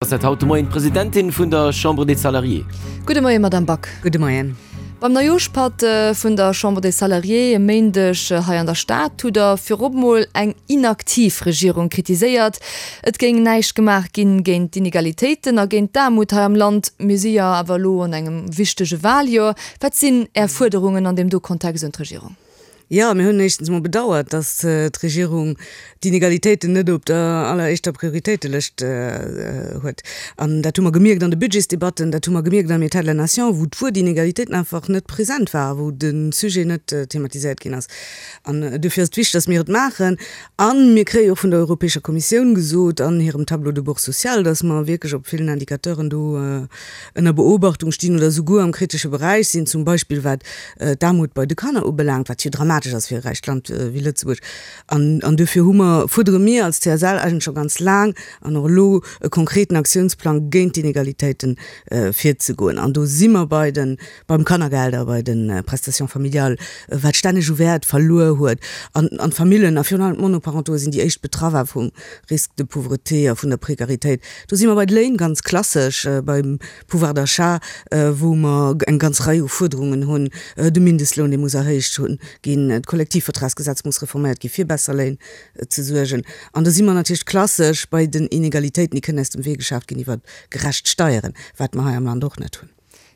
Ass dat haut de Moien d'Presidentin vun der Chambre des Salariés. Gudde Moien, Madamm Back. Gudde Moien. Beim Neijooschpatt vun der Chambre des Salariés e Méindeg hei an der Stad hutt Der virop mol eng inaktiv Regierung kritiséiert. Et géing näischt gemaach ginn géint d'Inegalitéiten a géint d'Aarmut hei am Land. Mir si jo awer elo an engem wichtege Waljoer. Wat sinn Är Fuerderungen an deem do Kontext un d'Regierung? Jo, mir hunn éischtens emol bedauert, datt d'Regierung d'Inegalitéiten net op der alleréischter Prioritéitelëscht huet. An dat hu mer gemierkt an de Budgetsdebatten, dat hu mer gemierkt am État de la nation, wou d'Wuert Inegalitéiten einfach net present war, wou de Sujet net thematiséiert ginn ass. An duerfir ass et wichteg, datt mir et maachen. A mir kréie och vun der Europäescher Kommissioun gesot an hirem Tableau de bord social, datt mer wierklech op villen Indicateuren do ënner Beobachtung stinn oder souguer am kritesche Beräich sinn, zum Beispill wat d'Aarmut bei de Kanner ubelaangt, wat jo dramatesch ass fir e räicht Land wéi Lëtzebuerg. An, an duerfir hu mer, fuerdere mir als CSL eigentlech scho ganz laang an och elo e konkreten Aktiounsplang géint d'Inegalitéiten virzegoen. An do si mer bei de, beim Kannergeld a bei de Prestations familiales, wat stänneg u Wäert verluer huet. An, an d'Famillen a virun allem d'Monoparentauxe sinn déi éischt Betraffer vum Risque de pauvreté a vun der Prekaritéit. Do si mer bei de Léin, ganz klassesch, beim Pouvoir d'achat, wou mer eng ganz Rei u Fuerderungen hunn, de Mindestloun, dee muss erhéicht ginn, d'Kollektivvertragsgesetz muss reforméiert ginn, fir besser Léin ze suergen. An da si mer natierlech klassesch bei den Inegalitéiten, déi kënnen aus dem Wee geschaaft ginn iwwer gerecht Steieren, wat mer hei am Land och net hunn.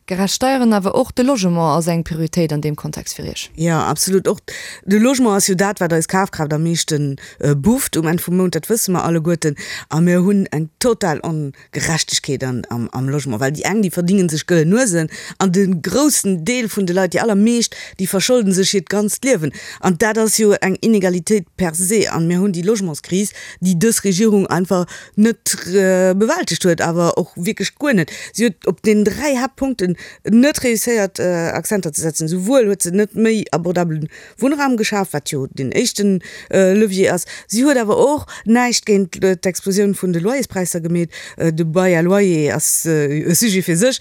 Gerecht Steieren, awer och de Logement ass eng Prioritéit an deem Kontext fir Iech? Jo, absolut. Och de Logement ass jo dat, wat eis Kafkraaft am meeschte bufft um Enn vum Mount, dat wësse mer alleguerten. A mir hunn eng total Ongerechtegkeet am Logement, well déi eng, déi verdingen sech gëllen Nuesen an de groussen Deel vun de Leit, déi allermeescht, déi verscholden sech hiert ganzt Liewen. An dat ass jo eng Inegalitéit per se. An mir hunn déi Logementskris, déi dës Regierung einfach net bewältegt huet, awer och wierklech guer net. Si huet op deenen 3 Haaptpunkten net réusséiert Akzenter ze setzen. Souwuel huet se net méi abordabele Wunnraum geschaf, wat jo deen éischten Levier ass, si huet awer och näischt géint d'Explosioun vun de Loyerspräisser gemeet. De Bail à loyer ass e Sujet fir sech,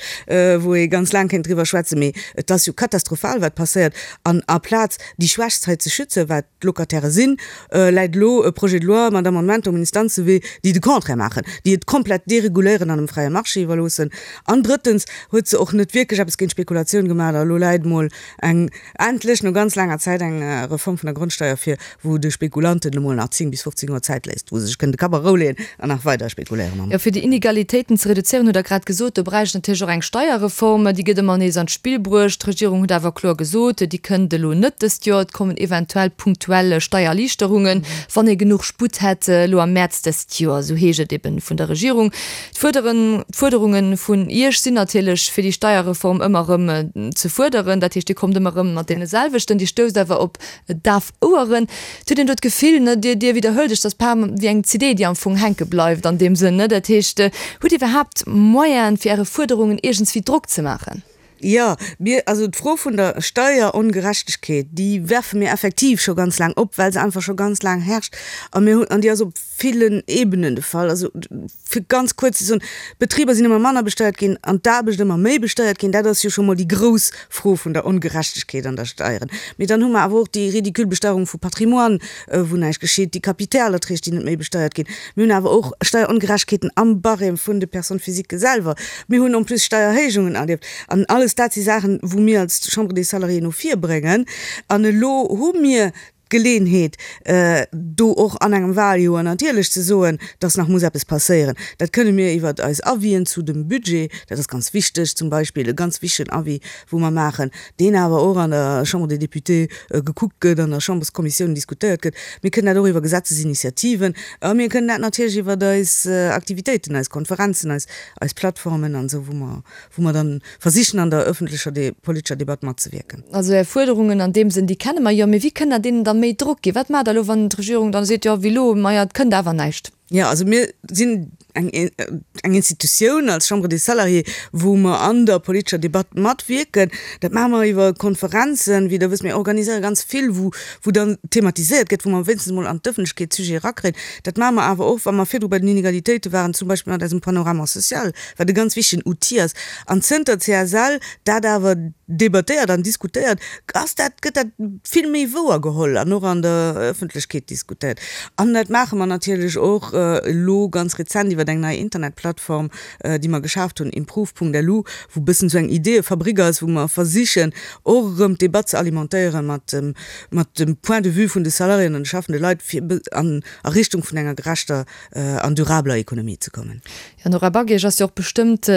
wou ee ganz laang kéint driwwer schwätzen, mee et ass jo katastrophal wat passéiert. An aplaz déi Schwächst hei ze schützen, wat d'Locataire sinn, läit elo e Projet de loi mat Amendementer um Instanzewee, déi de Contraire maachen, déi et komplett dereguléieren an dem fräie Marché iwwerloossen. An drëttens huet se och net wierklech eppes géint d'Spekulatioun gemaach. A elo läit emol eng, endlech no ganz laanger Zäit, eng Reform vun der Grondsteier vir, wou de Spekulanten emol nach 10 bis 15 Joer Zäit léisst, wou se sech kënnen de Kapp a Rou leeën an nach weider spekuléieren mam. Jo, fir déi Inegalitéiten ze reduzéieren, hutt Der grad gesot, do bräicht et natierlech och eng Steierreform. Déi gëtt ëmmer nees an d'Spill bruecht. D'Regierung huet awer kloer gesot, déi kënnt elo net dëst Joer. Et kommen eventuell punktuell Steiererliichterungen, wann ee genuch Sputt hätt elo am Mäerz dëst Joer, esou heescht et eben vun der Regierung. D'Fuerderunge vun Iech sinn natierlech, fir déi Steierreform ëmmer erëm ze fuerderen. Dat heescht, Dir kommt ëmmer erëm mat deene selwechten. Dir stousst awer op daf Oueren. Et huet een do d'Gefill, ne, Dir, Dir widderhuelt Iech, dass bal wéi eng CD, déi am Fong hänke bleift an deem Sënn, ne. Dat heescht, hutt Dir iwwerhaapt Moyenen, fir Äre Fuerderungen iergendswéi Drock ze maachen? Jo, mir, also d'Fro vun der Steierongerechtegkeet, déi werfe mir effektiv scho ganz laang op, well se einfach scho ganz laang herrscht. A mir hunn, an déi ass op villen Ebenen de Fall. Also, fir ganz kuerz ze soen, D'Betriber sinn ëmmer manner besteiert ginn an d'Aarbecht ëmmer méi besteiert ginn. Dat ass jo scho mol déi grouss Fro vun der Ongerechtegkeet an der Steieren. Mee dann hu mer awer och déi ridicule Besteierung vu Patrimoine, wou näischt geschitt, déi Kapitalerträg, déi net méi besteiert ginn. Mir hunn awer och Steierongerechtegkeeten am Barème vun de Personnes physiques selwer. Mir hunn en plus Steierhéijungen erlieft. An alles dat si Saachen, wou mir als Chambre des Salariés no vir bréngen. An elo hu mir d'Geleenheet, do och an engem Wahljoer natierlech ze soen, dass nach muss eppes passéieren. Dat kënne mir iwwert eis Avisen zu dem Budget, dat ass ganz wichteg, zum Beispill e ganz wichtegen Avis, wou mer maachen, deen awer och an der Chambre des Députés gekuckt gëtt, an der Chamberskommissioun diskutéiert gëtt. Mir kënnen dat och iwwer Gesetzesinitiativen a mir kënnen dat natierlech iwwer eis Aktivitéiten, eis Konferenzen, eis, eis Plattformen an esou, wou mer, wou mer dann versichen an der öffentlecher politescher Debatt matzewierken. Also Är Fuerderungen an deem Sënn, déi kenne mer jo. Mee wéi kënnt Der deenen da méi Drock ginn? Wat maacht Der elo, wann d'Regierung dann seet, jo wéi elo, maja et kënnt awer näischt? Jo, also mir sinn eng eng Institutioun als Chambre des Salariés, wou mer an der politescher Debatt matwierken. Dat maache mer iwwer Konferenzen, wéi Der wësst. Mir organiséiere ganz vill, wou wou dann thematiséiert gëtt, wou mer wéinstens emol an d'Ëffentlechkeet d'Sujete erakréien. Dat maache mer awer och, wa mer virdru bei den Inegalitéite waren, zum Beispill mat eisem Panorama social, wat e ganz wichtegen Outil ass. An zënter d'CSL dat awer debattéiert an diskutéiert, ass dat, gëtt dat vill méi wouer geholl an och an der Ëffentlechkeet diskutéiert. An dat maache mer natierlech och. elo ganz rezent iwwer eng nei Internetplattform, déi mer geschaaft hunn, improve.lu, wou e bëssen esou eng Ideeëfabrik ass, wou mer versichen och erëm d'Debatt ze alimentéiere mat dem, mat dem Point de vue vun de Salariéen an de schaffende Leit, fir an a Richtung vun enger gerechter an durabeler Ekonomie ze kommen. Jo, Nora Back, Iech ass jo och bestëmmt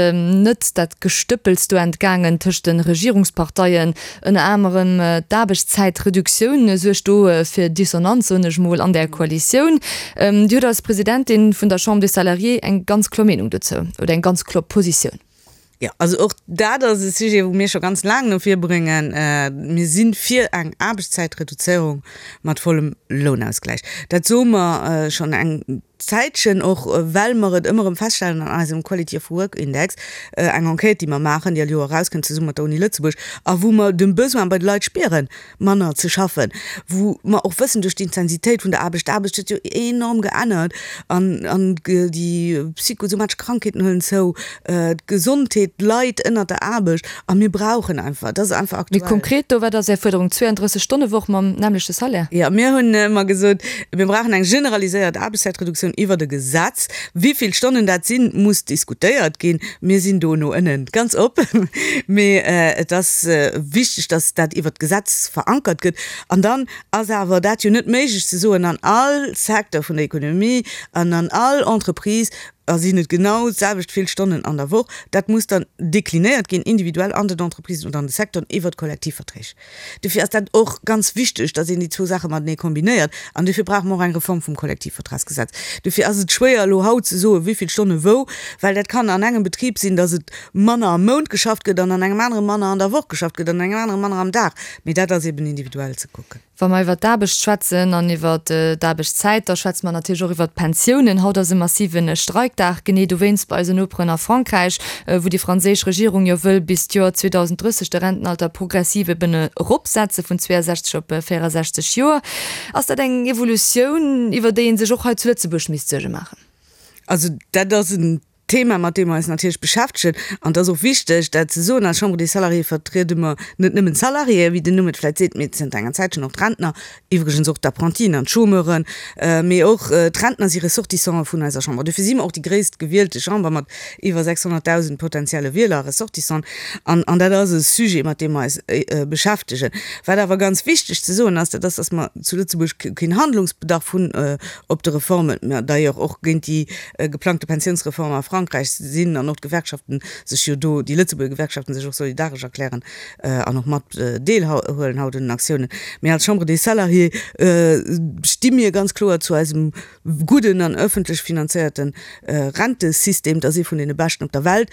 net dat Gestëppels do entgaangen tëscht de Regierungsparteien. Ënner anerem d'Aarbechtszäitreduktioun suergt do fir Dissonanz, soen ech mol, an där Koalitioun. Dir hutt als Presidentin vun der Chambre des Salariés eng ganz kloer Meenung dozou oder eng ganz kloer Positioun. Jo, also och dat ass e Sujet, wou mir scho ganz laang no vir bréngen. Mir si fir eng Aarbechtszäitreduzéierung mat vollem Lounausgläich. Dat soe mer schonn eng Zäitchen, och well mer et ëmmer erëm feststellen an eisem Quality of Work Index, eng Enquête, déi mer maachen, déi all Joer erauskënnt zesumme mat der Uni Lëtzebuerg, a wou mer de Besoin bei de Leit spieren, manner ze schaffen, wou mer och wëssen duerch d'Intensitéit vun der Aarbecht, d'Aarbecht huet jo enorm geännert an an déi psychosomatesch Krankheeten huelen zou, d'Gesondheet leit ënnert der Aarbecht a mir brauchen einfach, dat ass einfach aktuell. Méi konkret do, wat ass Är Fuerderung? 32 Stonne Woch mam nämmlechte Salaire? Jo, mir hunn ëmmer gesot, mir brauchen eng generaliséiert Aarbechtszäitreduktioun iwwert e Gesetz. Wéi vill Stonnen dat sinn, muss diskutéiert ginn. Mir sinn do no ënnen ganz op, mee et ass wichteg, dass dat iwwert d'Gesetz verankert gëtt. An dann ass awer dat jo net méiglech ze soen, an all Secteur vun der Ekonomie an an all Entreprise sinn et genau d'selwecht vill Stonnen an der Woch. Dat muss dann deklinéiert ginn, individuell an den Entreprisen oder an de Secteuren iwwert Kollektivverträg. Dofir ass dat och ganz wichteg, dass een déi zwou Saache matenee kombinéiert. An dofir brauche mer och eng Reform vum Kollektivvertragsgesetz. Dofir ass et schwéier, elo haut ze soen, wéi vill Stonne wou, well dat kann an engem Betrib sinn, dass et manner am Mount geschafft gëtt an an engem anere manner an der Woch geschafft gëtt an an engem anere manner am Dag. Mee dat ass eben individuell ze kucken. Wa mer iwwert d'Aarbecht schwätzen an iwwert d'Aarbechtszäit, da schwätze mer natierlech och iwwert d'Pensiounen. Haut ass e massive Streikdag, genee dowéinst bei eisen Noperen a Frankräich, wou déi franséisch Regierung jo wëll bis d'Joer 2030 de Rentenalter progressiv eben eropsetze vun 62 op 64 Joer. Ass dat eng Evolutioun, iwwer déi ee sech och hei zu Lëtzebuerg misst Suerge maachen? Also dat ass en Thema, mat deem mer eis natierlech beschäftegen, an et ass och wichteg, dat ze soen, als Chambre des Salariés vertriede mer net nëmmen d'Salariéen, wéi den Numm et vläicht seet, mee zënter enger Zäitchen och d'Rentner, iwwregens och d'Apprentien an d'Chômeuren, mee och d'Rentner si Ressortissantë vun eiser Chamber. Dofir si mer och déi gréisst gewielte Chamber mat iwwer 600.000 potenzielle Wieler a Ressortissanten. An, an dat ass e Sujet, mat deem mer eis beschäftegen. Wat awer ganz wichteg ze soen ass, dat ass, dass mer zu Lëtzebuerg keen Handlungsbedarf hunn op de Reformen, mer d'ailleurs och géint déi geplangte Pensiounsreform a Frankräich sinn an och d'Gewerkschaften sech jo do, déi Lëtzebuerger Gewerkschaften sech och solidaresch erklären an och mat deelhuelen haut un den Aktiounen. Mee als Chambre des Salariés sti mir ganz kloer zu eisem gudden an ëffentlech finanzéierte Rentesystem. Dat ass ee vun deene beschten op der Welt.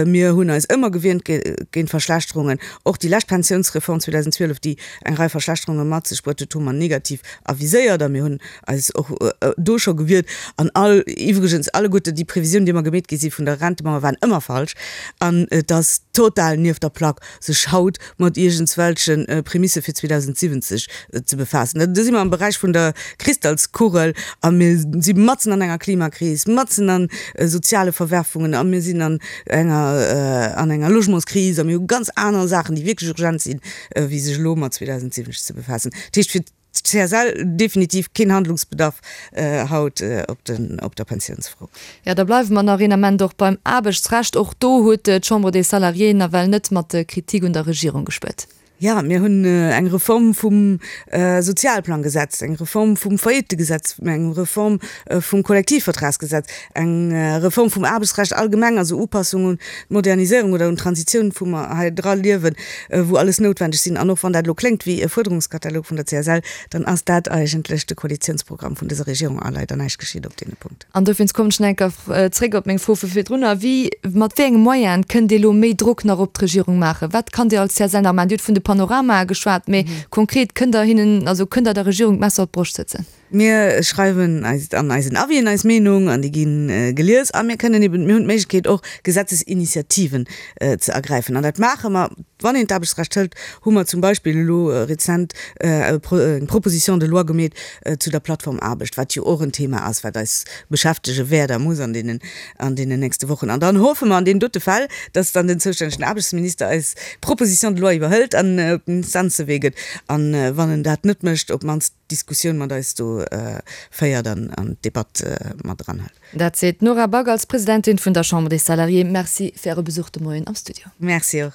Mir hunn eis ëmmer gewiernt géint Verschlechterungen. Och déi lescht Pensiounsreform 2012, déi eng Rei Verschlechterunge mat sech bruet huet, hu mer negativ aviséiert a mir hunn eis och do scho gewiert an all, iwwregens alleguerte déi Previsiounen, déi ëmmer gemeet gi si vun der Rentemauer, waren ëmmer falsch an et ass total nieft der Plack, sech haut mat iergendswelche Premissë fir 2070 ze befaassen. Do si mer am Beräich vun der Kristallskugel a mir si matzen an enger Klimakris, matzen a soziale Verwerfungen a mir sinn an enger, an enger Logementskris a mir hu ganz aner Saachen, déi wierklech urgent sinn, wéi sech elo mat 2070 ze befaassen. Dat heescht, fir CSL, definitiv keen Handlungsbedarf haut op der Pensiounsfro. Jo, da bleiwe mer nach een Ament och beim Aarbechtsrecht. Och do huet d'Chambre des Salariés nawell net mat Kritik un der Regierung gespuert. Jo, mir hunn eng Reform vum Sozialplanggesetz, eng Reform vum Faillittegesetz, eng Reform vum Kollektivvertragsgesetz, eng Reform vum Aarbechtsrecht allgemeng, also Upassung un d'Moderniséierung oder un d'Transitioun, wou mer hei dra liewen, wou alles noutwendeg sinn. An och wann dat elo kléngt wéi e Fuerderungskatalog vun der CSL, dann ass dat eigentlech de Koalitionsprogramm vun dëser Regierung a leider näischt geschitt op deene Punkten. An dowéinst kommen ech nach eng Kéier zréck op meng Fro vu virdrunner, Wéi, mat wéi enge Moyene kënnt Dir elo méi Drock nach op d'Regierung maachen? Wat kann Dir als CSL nach maachen? Dir hutt vun de Panoramae geschwat, mee konkret, kënnt Der hinnen, also kënnt Der der Regierung d'Messer op d'Broscht sëtzen? Mir schreiwen eis an eisen Avisen eis Meenung an déi gi gelies a mir kënnen eben, mir hunn d'Méiglechkeet och Gesetzesinitiativen ze ergräifen an dat maache mer. Wann een d'Aarbechtsrecht hëlt, hu mer zum Beispill elo rezent eng Proposition de loi gemeet zu der Plattformaarbecht, wat jo och en Thema ass, wat eis beschäftege wäert a muss an deenen, an deenen nächste Wochen. An dann hoffe mer an deenen dote Fäll, dass dann den zoustännegen Aarbechtsminister eis Proposition de loi iwwerhëlt an op den Instanzewee gëtt an, wann en dat net mécht, op d'mannst. d'Diskussioun mat eis do féiert an d'Debatt mat eranhëlt. Dat seet d'Nora Back als Presidentin vun der Chambre des Salariés. Merci fir Äre Besuch de Moien am Studio. Merci och.